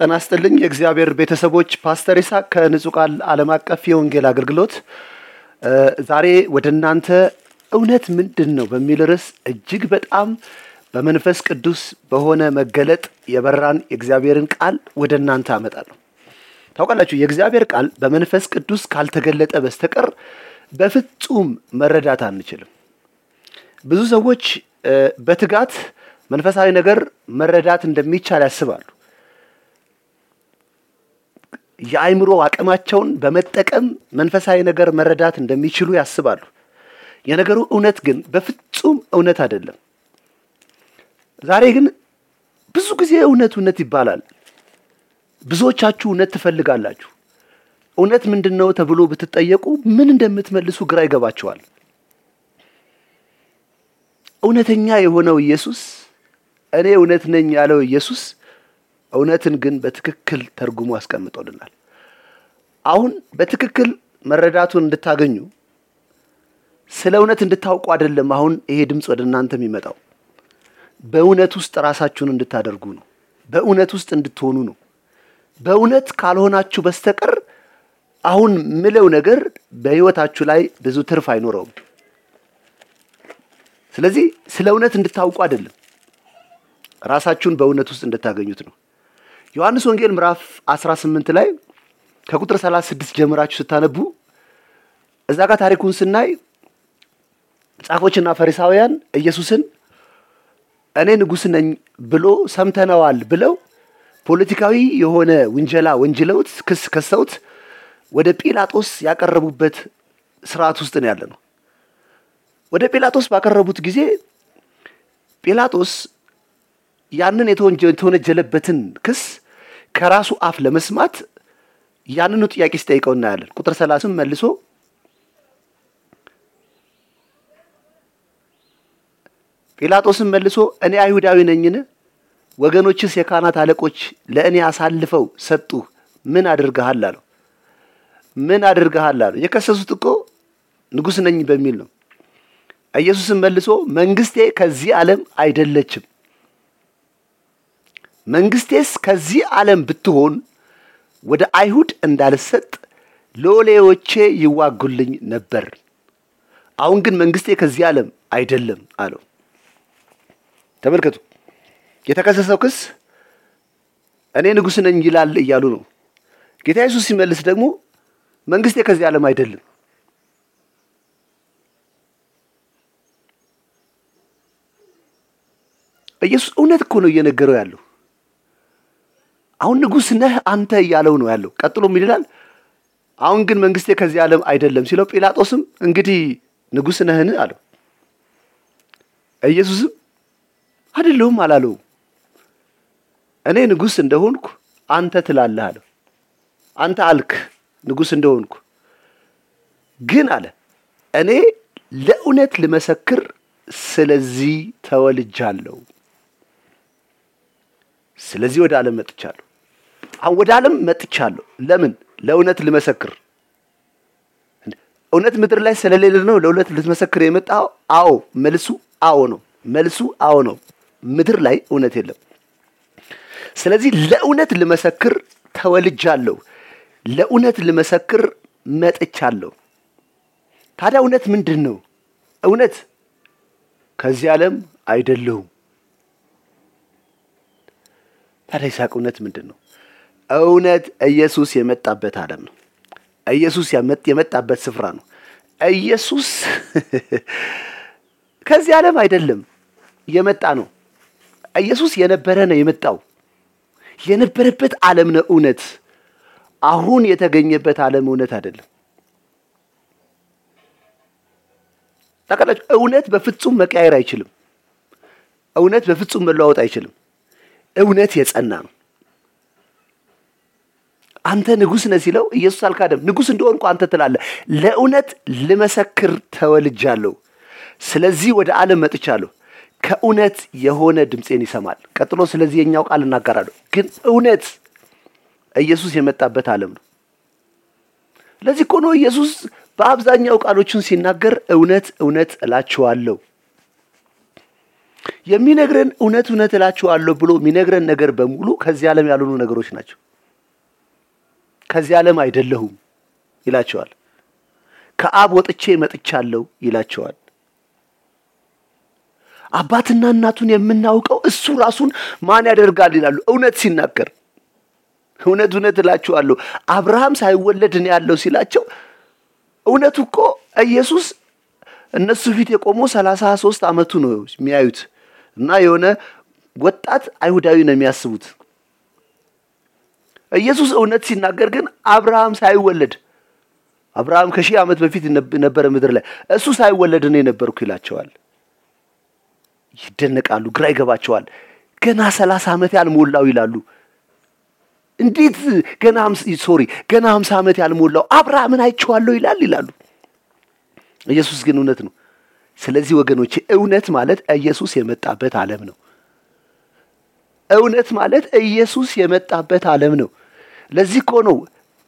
ጤና ይስጥልኝ የእግዚአብሔር ቤተሰቦች ፓስተር ይስሐቅ ከንጹህ ቃል ዓለም አቀፍ የወንጌል አገልግሎት ዛሬ ወደናንተ እውነት ምንድነው በሚል ርዕስ እጅግ በጣም በመንፈስ ቅዱስ በሆነ መገለጥ የበራን የእግዚአብሔርን ቃል ወደናንተ አመጣለሁ። ታውቃላችሁ የእግዚአብሔር ቃል በመንፈስ ቅዱስ ካልተገለጠ በስተቀር በፍጹም መረዳት አንችልም። ብዙ ሰዎች በትጋት መንፈሳዊ ነገር መረዳት እንደሚቻል ያስባሉ። የአይምሮ አቅማቸውን በመጠቀም መንፈሳዊ ነገር መረዳት እንደሚችሉ ያስባሉ። የነገሩ እውነት ግን በፍጹም እውነት አይደለም። ዛሬ ግን ብዙ ጊዜ እውነት ይባላል። ብዙዎቻችሁ እውነት ትፈልጋላችሁ። እውነት ምንድነው ተብሎ ብትጠየቁ ምን እንደምትመልሱ ግራ ይገባችኋል። እውነተኛ የሆነው ኢየሱስ እኔ እውነት ነኝ ያለው ኢየሱስ እውነትን ግን በትክክል ተርጉሞ አስቀምጦልናል። አሁን በትክክል መረዳቱን እንድታገኙ ስለ እውነት እንድታውቁ አይደለም አሁን ይሄ ድምጽ ወደናንተ የሚመጣው። በእውነት ውስጥ ራሳችሁን እንድታደርጉ ነው። በእውነት ውስጥ እንድትሆኑ ነው። በእውነት ካልሆናችሁ በስተቀር አሁን ምለው ነገር በህይወታችሁ ላይ ብዙ ትርፍ አይኖረውም። ስለዚህ ስለ እውነት እንድታውቁ አይደለም ራሳችሁን በእውነት ውስጥ እንድታገኙት ነው። ዮሐንስ ወንጌል ምዕራፍ 18 ላይ ከቁጥር 36 ጀምራችሁ ስታነቡ እዛ ጋር ታሪኩን ስናይ ጻፎችና ፈሪሳውያን ኢየሱስን እኔ ንጉስ ነኝ ብሎ ሰምተናዋል ብለው ፖለቲካዊ የሆነ ወንጀላ ወንጅለውት ክስ ከሰውት ወደ ጲላጦስ ያቀረቡበት ስርዓት ውስጥ ነው ያለነው። ወደ ጲላጦስ ባቀረቡት ጊዜ ጲላጦስ ያንን የተወነጀለበትን ክስ ከራሱ አፍ ለመስማት ያንኑ ጥያቄ ሲጠይቀው እናያለን። ቁጥር 30 መልሶ ጲላጦስም መልሶ እኔ አይሁዳዊ ነኝን? ወገኖችስ የካህናት አለቆች ለእኔ አሳልፈው ሰጡ ምን አድርገሃል አለው። ምን አድርገሃል አለው። የከሰሱት እኮ ንጉስ ነኝ በሚል ነው። ኢየሱስም መልሶ መንግስቴ ከዚህ ዓለም አይደለችም። መንግስቴስ ከዚህ ዓለም ብትሆን ወደ አይሁድ እንዳልሰጥ ሎሌዎቼ ይዋጉልኝ ነበር። አሁን ግን መንግስቴ ከዚህ ዓለም አይደለም አለው። ተመልከቱ የተከሰሰው ክስ እኔ ንጉስ ነኝ ይላል እያሉ ነው። ጌታ ኢየሱስ ሲመልስ ደግሞ መንግስቴ ከዚህ ዓለም አይደለም። ኢየሱስ እውነት እኮ ነው እየነገረው ያለው። አሁን ንጉስ ነህ አንተ እያለው ነው ያለው። ቀጥሎ ምን ይላል? አሁን ግን መንግስቴ ከዚህ ዓለም አይደለም ሲለው ጲላጦስም እንግዲህ ንጉስ ነህን አለው። ኢየሱስም አይደለም አላለው። እኔ ንጉስ እንደሆንኩ አንተ ትላለህ አለው። አንተ አልክ ንጉስ እንደሆንኩ ግን አለ እኔ ለእውነት ልመሰክር ስለዚህ ተወልጃለሁ። ስለዚህ ወደ ዓለም መጥቻለሁ። አሁን ወደ ዓለም መጥቻለሁ ለምን? ለእውነት ልመሰክር። እውነት ምድር ላይ ስለሌለ ነው ለእውነት ልትመሰክር የመጣው? አዎ መልሱ አዎ ነው። መልሱ አዎ ነው። ምድር ላይ እውነት የለም። ስለዚህ ለእውነት ልመሰክር ተወልጃለሁ። ለእውነት ልመሰክር መጥቻለሁ። ታዲያ እውነት ምንድነው? እውነት ከዚህ ዓለም አይደለም። ታዲያ ይስሐቅ እውነት ምንድነው? እውነት ኢየሱስ የመጣበት ዓለም ነው። ኢየሱስ የመጣበት ስፍራ ነው። ኢየሱስ ከዚህ ዓለም አይደለም የመጣ ነው። ኢየሱስ የነበረ ነው የመጣው። የነበረበት ዓለም ነው እውነት። አሁን የተገኘበት ዓለም እውነት አይደለም። ታውቃላችሁ እውነት በፍጹም መቀየር አይችልም። እውነት በፍጹም መለዋወጥ አይችልም። እውነት የጸና ነው። አንተ ንጉስ ነህ ሲለው ኢየሱስ አልካደም። ንጉስ እንደሆንኩ አንተ ትላለህ። ለእውነት ልመሰክር ተወልጃለሁ። ስለዚህ ወደ ዓለም መጥቻለሁ። ከእውነት የሆነ ድምጼን ይሰማል። ቀጥሎ ስለዚህ የኛው ቃል እናገራለሁ። ግን እውነት ኢየሱስ የመጣበት ዓለም ነው። ለዚህ እኮ ነው ኢየሱስ በአብዛኛው ቃሎቹን ሲናገር እውነት እላችኋለሁ የሚነግረን እውነት እላችኋለሁ ብሎ የሚነግረን ነገር በሙሉ ከዚህ ዓለም ያልሆኑ ነገሮች ናቸው። ከዚህ ዓለም አይደለሁም ይላቸዋል። ከአብ ወጥቼ መጥቻለሁ ይላቸዋል። አባትና እናቱን የምናውቀው እሱ ራሱን ማን ያደርጋል ይላሉ እውነት ሲናገር። እውነት እላችኋለሁ አብርሃም ሳይወለድ ነው ያለው ሲላቸው እውነቱ እኮ ኢየሱስ እነሱ ፊት የቆመው 33 ዓመቱ ነው የሚያዩት እና የሆነ ወጣት አይሁዳዊ ነው የሚያስቡት። ኢየሱስ እውነት ሲናገር ግን አብርሃም ሳይወለድ አብርሃም ከሺህ ዓመት በፊት ነበር ምድር ላይ እሱ ሳይወለድ ነው የነበርኩ ይላቸዋል። ይደነቃሉ፣ ግራ ይገባቸዋል። ገና 30 ዓመት ያልሞላው ይላሉ። እንዴት ገና 50 ዓመት ያልሞላው አብርሃምን አይቼዋለሁ ይላሉ። ኢየሱስ ግን እውነት ነው። ስለዚህ ወገኖቼ እውነት ማለት ኢየሱስ የመጣበት ዓለም ነው። እውነት ማለት ኢየሱስ የመጣበት ዓለም ነው። ለዚህ እኮ ነው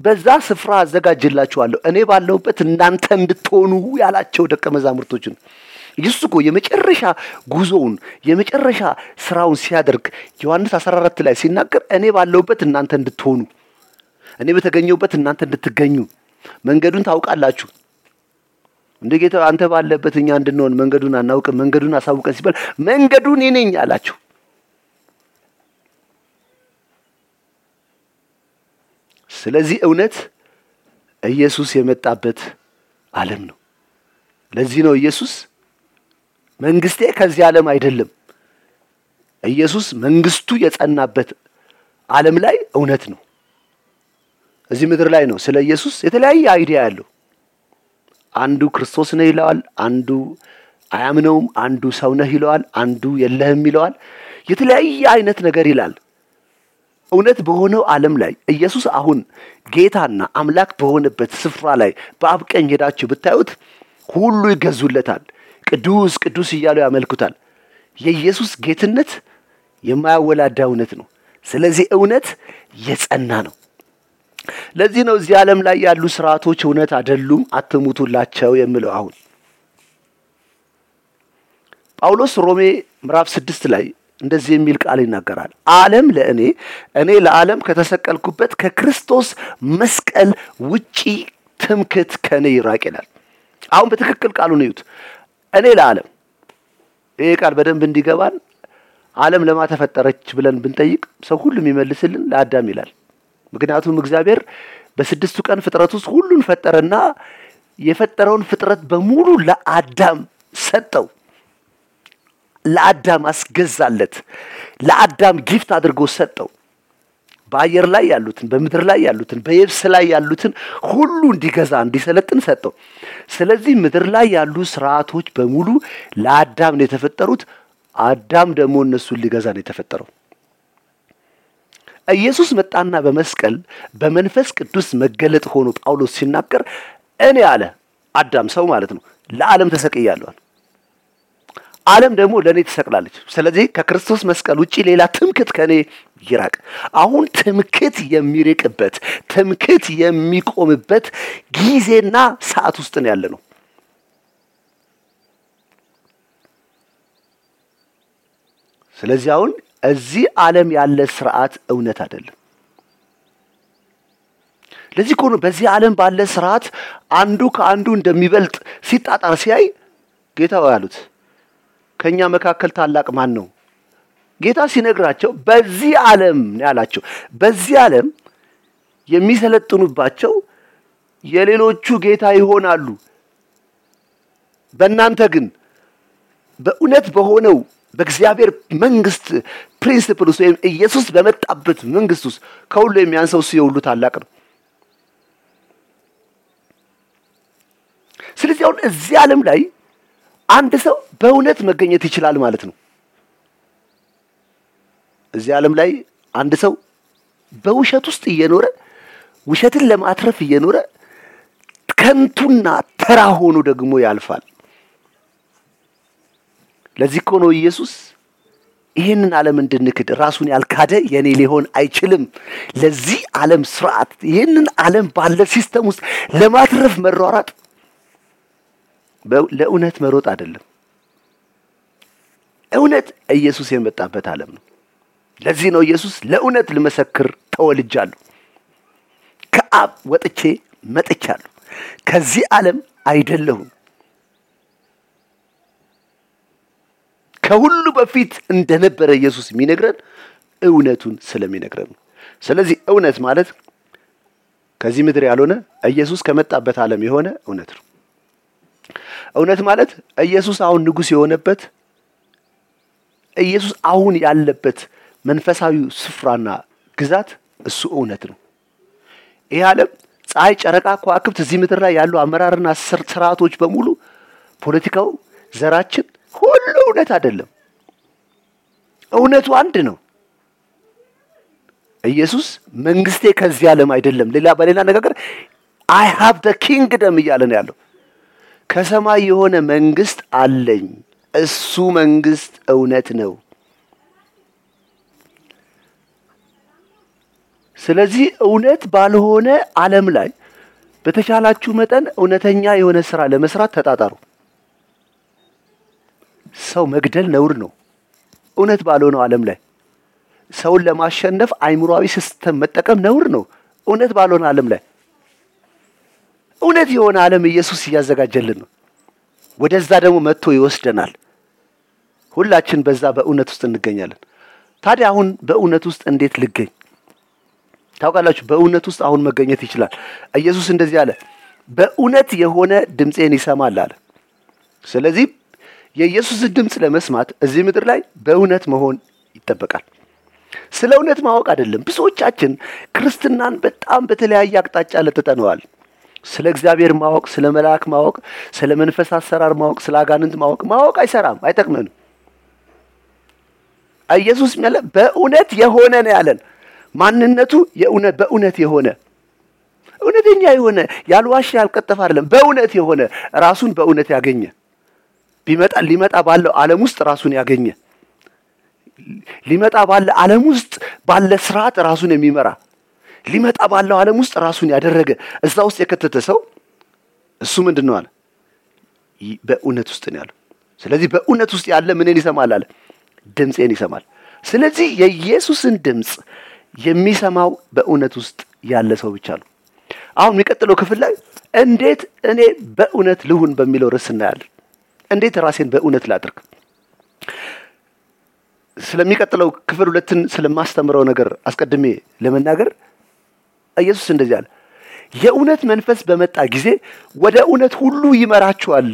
በዛ ስፍራ አዘጋጅላችኋለሁ እኔ ባለሁበት እናንተ እንድትሆኑ ያላቸው ደቀ መዛሙርቶችን። ኢየሱስ እኮ የመጨረሻ ጉዞውን የመጨረሻ ስራውን ሲያደርግ ዮሐንስ 14 ላይ ሲናገር እኔ ባለሁበት እናንተ እንድትሆኑ፣ እኔ በተገኘሁበት እናንተ እንድትገኙ፣ መንገዱን ታውቃላችሁ። እንደ ጌታ አንተ ባለበት እኛ እንድንሆን መንገዱን አናውቅም፣ መንገዱን አሳውቀን ሲባል መንገዱን እኔ ነኝ አላችሁ። ስለዚህ እውነት ኢየሱስ የመጣበት ዓለም ነው። ለዚህ ነው ኢየሱስ መንግስቴ ከዚህ ዓለም አይደለም። ኢየሱስ መንግስቱ የጸናበት ዓለም ላይ እውነት ነው። እዚህ ምድር ላይ ነው ስለ ኢየሱስ የተለያየ አይዲያ ያለው። አንዱ ክርስቶስ ነው ይለዋል፣ አንዱ አያምነውም፣ አንዱ ሰው ነህ ይለዋል፣ አንዱ የለህም ይለዋል። የተለያየ አይነት ነገር ይላል። እውነት በሆነው ዓለም ላይ ኢየሱስ አሁን ጌታና አምላክ በሆነበት ስፍራ ላይ በአብ ቀኝ ሄዳችሁ ብታዩት ሁሉ ይገዙለታል፣ ቅዱስ ቅዱስ እያሉ ያመልኩታል። የኢየሱስ ጌትነት የማያወላዳ እውነት ነው። ስለዚህ እውነት የጸና ነው። ለዚህ ነው እዚህ ዓለም ላይ ያሉ ስርዓቶች እውነት አይደሉም፣ አትሙቱላቸው የሚለው። አሁን ጳውሎስ ሮሜ ምዕራፍ 6 ላይ እንደዚህ የሚል ቃል ይናገራል። ዓለም እኔ ለዓለም ከተሰቀልኩበት ከክርስቶስ መስቀል ውጪ ትምክህት ከኔ ይራቅ ይላል። አሁን በትክክል ቃሉን እዩት። እኔ ለዓለም፣ ይሄ ቃል በደንብ እንዲገባን ዓለም ለማ ተፈጠረች ብለን ብንጠይቅ ሰው ሁሉ የሚመልስልን ለአዳም ይላል። ምክንያቱም እግዚአብሔር በ6ቱ ቀን ፍጥረት ውስጥ ሁሉን ፈጠረና የፈጠረውን ፍጥረት በሙሉ ለአዳም ሰጠው፣ ለአዳም አስገዛለት፣ ለአዳም ጊፍት አድርጎ ሰጠው። በአየር ላይ ያሉትን፣ በምድር ላይ ያሉትን፣ በየብስ ላይ ያሉትን ሁሉ እንዲገዛ እንዲሰለጥን ሰጠው። ስለዚህ ምድር ላይ ያሉ ስርዓቶች በሙሉ ለአዳም ነው የተፈጠሩት። አዳም ደግሞ እነሱን ሊገዛ ነው የተፈጠረው። ኢየሱስ መጣና በመስቀል በመንፈስ ቅዱስ መገለጥ ሆኖ ጳውሎስ ሲናገር እኔ አለ አዳም ሰው ማለት ነው ለዓለም ተሰቅያለሁ፣ ዓለም ደግሞ ለኔ ተሰቅላለች። ስለዚህ ከክርስቶስ መስቀል ውጪ ሌላ ትምክህት ከኔ ይራቅ። አሁን ትምክህት የሚርቅበት ትምክህት የሚቆምበት ጊዜና ሰዓት ውስጥ ነው ያለነው። ስለዚህ አሁን እዚህ ዓለም ያለ ስርዓት እውነት አይደለም። ለዚህ እኮ ነው በዚህ ዓለም ባለ ስርዓት አንዱ ከአንዱ እንደሚበልጥ ሲጣጣር ሲያይ ጌታው ያሉት ከኛ መካከል ታላቅ ማን ነው? ጌታ ሲነግራቸው በዚህ ዓለም ነው ያላቸው። በዚህ ዓለም የሚሰለጥኑባቸው የሌሎቹ ጌታ ይሆናሉ። በእናንተ ግን በእውነት በሆነው በእግዚአብሔር መንግስት ፕሪንሲፕል ውስጥ ወይም ኢየሱስ በመጣበት መንግስት ውስጥ ከሁሉ የሚያንሰው እሱ የሁሉ ታላቅ ነው። ስለዚህ አሁን እዚህ ዓለም ላይ አንድ ሰው በእውነት መገኘት ይችላል ማለት ነው። እዚህ ዓለም ላይ አንድ ሰው በውሸት ውስጥ እየኖረ ውሸትን ለማትረፍ እየኖረ ከንቱና ተራ ሆኖ ደግሞ ያልፋል። ለዚህ እኮ ነው ኢየሱስ ይሄንን ዓለም እንድንክድ ራሱን ያልካደ የኔ ሊሆን አይችልም። ለዚህ ዓለም ስርዓት ይሄንን ዓለም ባለ ሲስተም ውስጥ ለማትረፍ መሯሯጥ ለእውነት መሮጥ አይደለም። እውነት ኢየሱስ የመጣበት ዓለም ነው። ለዚህ ነው ኢየሱስ ለእውነት ልመሰክር ተወልጃለሁ፣ ከአብ ወጥቼ መጥቻለሁ፣ ከዚህ ዓለም አይደለሁም። ከሁሉ በፊት እንደነበረ ኢየሱስ የሚነግረን እውነቱን ስለሚነግረን ነው። ስለዚህ እውነት ማለት ከዚህ ምድር ያልሆነ ኢየሱስ ከመጣበት ዓለም የሆነ እውነት ነው። እውነት ማለት ኢየሱስ አሁን ንጉሥ የሆነበት ኢየሱስ አሁን ያለበት መንፈሳዊ ስፍራና ግዛት እሱ እውነት ነው። ይህ ዓለም ፀሐይ፣ ጨረቃ፣ ከዋክብት እዚህ ምድር ላይ ያሉ አመራርና ስርዓቶች በሙሉ ፖለቲካው፣ ዘራችን ሁሉ እውነት አይደለም። እውነቱ አንድ ነው። ኢየሱስ መንግስቴ ከዚህ ዓለም አይደለም፣ በሌላ አነጋገር I have the kingdom እያለ ነው ያለው። ከሰማይ የሆነ መንግስት አለኝ፣ እሱ መንግስት እውነት ነው። ስለዚህ እውነት ባልሆነ ዓለም ላይ በተቻላችሁ መጠን እውነተኛ የሆነ ስራ ለመስራት ተጣጣሩ። ሰው መግደል ነውር ነው። እውነት ባልሆነው ዓለም ላይ ሰውን ለማሸነፍ አይምሮአዊ ሲስተም መጠቀም ነውር ነው። እውነት ባልሆነ ዓለም ላይ እውነት የሆነ ዓለም ኢየሱስ እያዘጋጀልን ነው። ወደዛ ደግሞ መጥቶ ይወስደናል። ሁላችን በዛ በእውነት ውስጥ እንገኛለን። ታዲያ አሁን በእውነት ውስጥ እንዴት ልገኝ? ታውቃላችሁ፣ በእውነት ውስጥ አሁን መገኘት ይችላል። ኢየሱስ እንደዚህ አለ፣ በእውነት የሆነ ድምፄን ይሰማል አለ። ስለዚህ የኢየሱስን ድምጽ ለመስማት እዚህ ምድር ላይ በእውነት መሆን ይጠበቃል። ስለ እውነት ማወቅ አይደለም። ብዙዎቻችን ክርስትናን በጣም በተለያየ አቅጣጫ ለጥጠነዋል። ስለ እግዚአብሔር ማወቅ፣ ስለ መልአክ ማወቅ፣ ስለ መንፈስ አሰራር ማወቅ፣ ስለ አጋንንት ማወቅ አይሰራም፣ አይጠቅመንም። ኢየሱስ ያለ በእውነት የሆነ ነው ያለን። ማንነቱ የእውነት በእውነት የሆነ እውነተኛ የሆነ ያልዋሽ ያልቀጠፈ አይደለም። በእውነት የሆነ ራሱን በእውነት ያገኘ ሊመጣ ባለው ዓለም ውስጥ ራሱን ያገኘ ሊመጣ ባለው ዓለም ውስጥ ባለ ስርዓት ራሱን የሚመራ ሊመጣ ባለው ዓለም ውስጥ ራሱን ያደረገ እዛ ውስጥ የከተተ ሰው እሱ ምንድነው አለ? በእውነት ውስጥ ነው ያለው። ስለዚህ በእውነት ውስጥ ያለ ምንን ይሰማል አለ? ድምፄን ይሰማል። ስለዚህ የኢየሱስን ድምጽ የሚሰማው በእውነት ውስጥ ያለ ሰው ብቻ ነው። አሁን የሚቀጥለው ክፍል ላይ እንዴት እኔ በእውነት ልሁን በሚለው ርዕስ እናያለን። እንዴት ራሴን በእውነት ላድርግ? ስለሚቀጥለው ክፍል 2ን ስለማስተምረው ነገር አስቀድሜ ለመናገር ኢየሱስ እንደዚህ አለ፣ የእውነት መንፈስ በመጣ ጊዜ ወደ እውነት ሁሉ ይመራችኋል።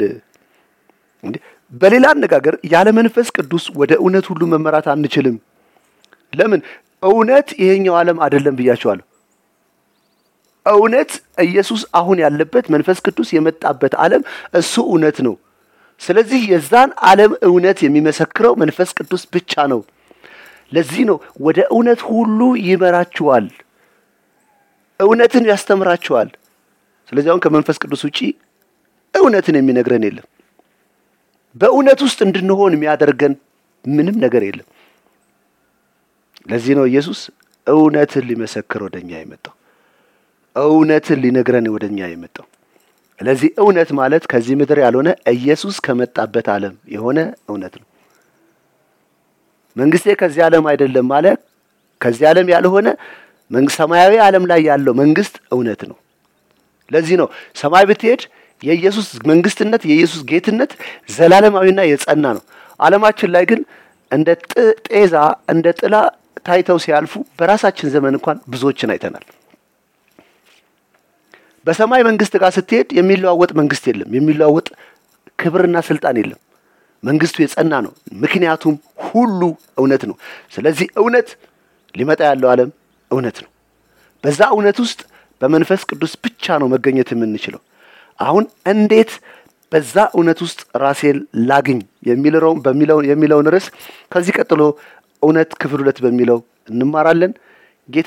በሌላ አነጋገር ያለ መንፈስ ቅዱስ ወደ እውነት ሁሉ መመራት አንችልም። ለምን? እውነት ይሄኛው ዓለም አይደለም ብያችኋለሁ። እውነት ኢየሱስ አሁን ያለበት መንፈስ ቅዱስ የመጣበት ዓለም እሱ እውነት ነው። ስለዚህ የዛን ዓለም እውነት የሚመሰክረው መንፈስ ቅዱስ ብቻ ነው። ለዚህ ነው ወደ እውነት ሁሉ ይመራችኋል፣ እውነትን ያስተምራችኋል። ስለዚህ አሁን ከመንፈስ ቅዱስ ውጪ እውነትን የሚነግረን የለም። በእውነት ውስጥ እንድንሆን የሚያደርገን ምንም ነገር የለም። ለዚህ ነው ኢየሱስ እውነትን ሊመሰክር ወደኛ የመጣው፣ እውነትን ሊነግረን ወደኛ የመጣው። ስለዚህ እውነት ማለት ከዚህ ምድር ያልሆነ ኢየሱስ ከመጣበት ዓለም የሆነ እውነት ነው። መንግስቴ ከዚህ ዓለም አይደለም ማለት ከዚህ ዓለም ያልሆነ ሰማያዊ ዓለም ላይ ያለው መንግስት እውነት ነው። ለዚህ ነው ሰማይ ብትሄድ የኢየሱስ መንግስትነት የኢየሱስ ጌትነት ዘላለማዊና የጸና ነው። ዓለማችን ላይ ግን እንደ ጤዛ እንደ ጥላ ታይተው ሲያልፉ በራሳችን ዘመን እንኳን ብዙዎችን አይተናል። በሰማይ መንግስት ጋር ስትሄድ የሚለዋወጥ መንግስት የለም፣ የሚለዋወጥ ክብርና ስልጣን የለም። መንግስቱ የጸና ነው፣ ምክንያቱም ሁሉ እውነት ነው። ስለዚህ እውነት ሊመጣ ያለው ዓለም እውነት ነው። በዛ እውነት ውስጥ በመንፈስ ቅዱስ ብቻ ነው መገኘት የምንችለው። አሁን እንዴት በዛ እውነት ውስጥ ራሴን ላግኝ የሚለውን ርዕስ ከዚህ ቀጥሎ እውነት ክፍል 2 በሚለው እንማራለን። ጌታ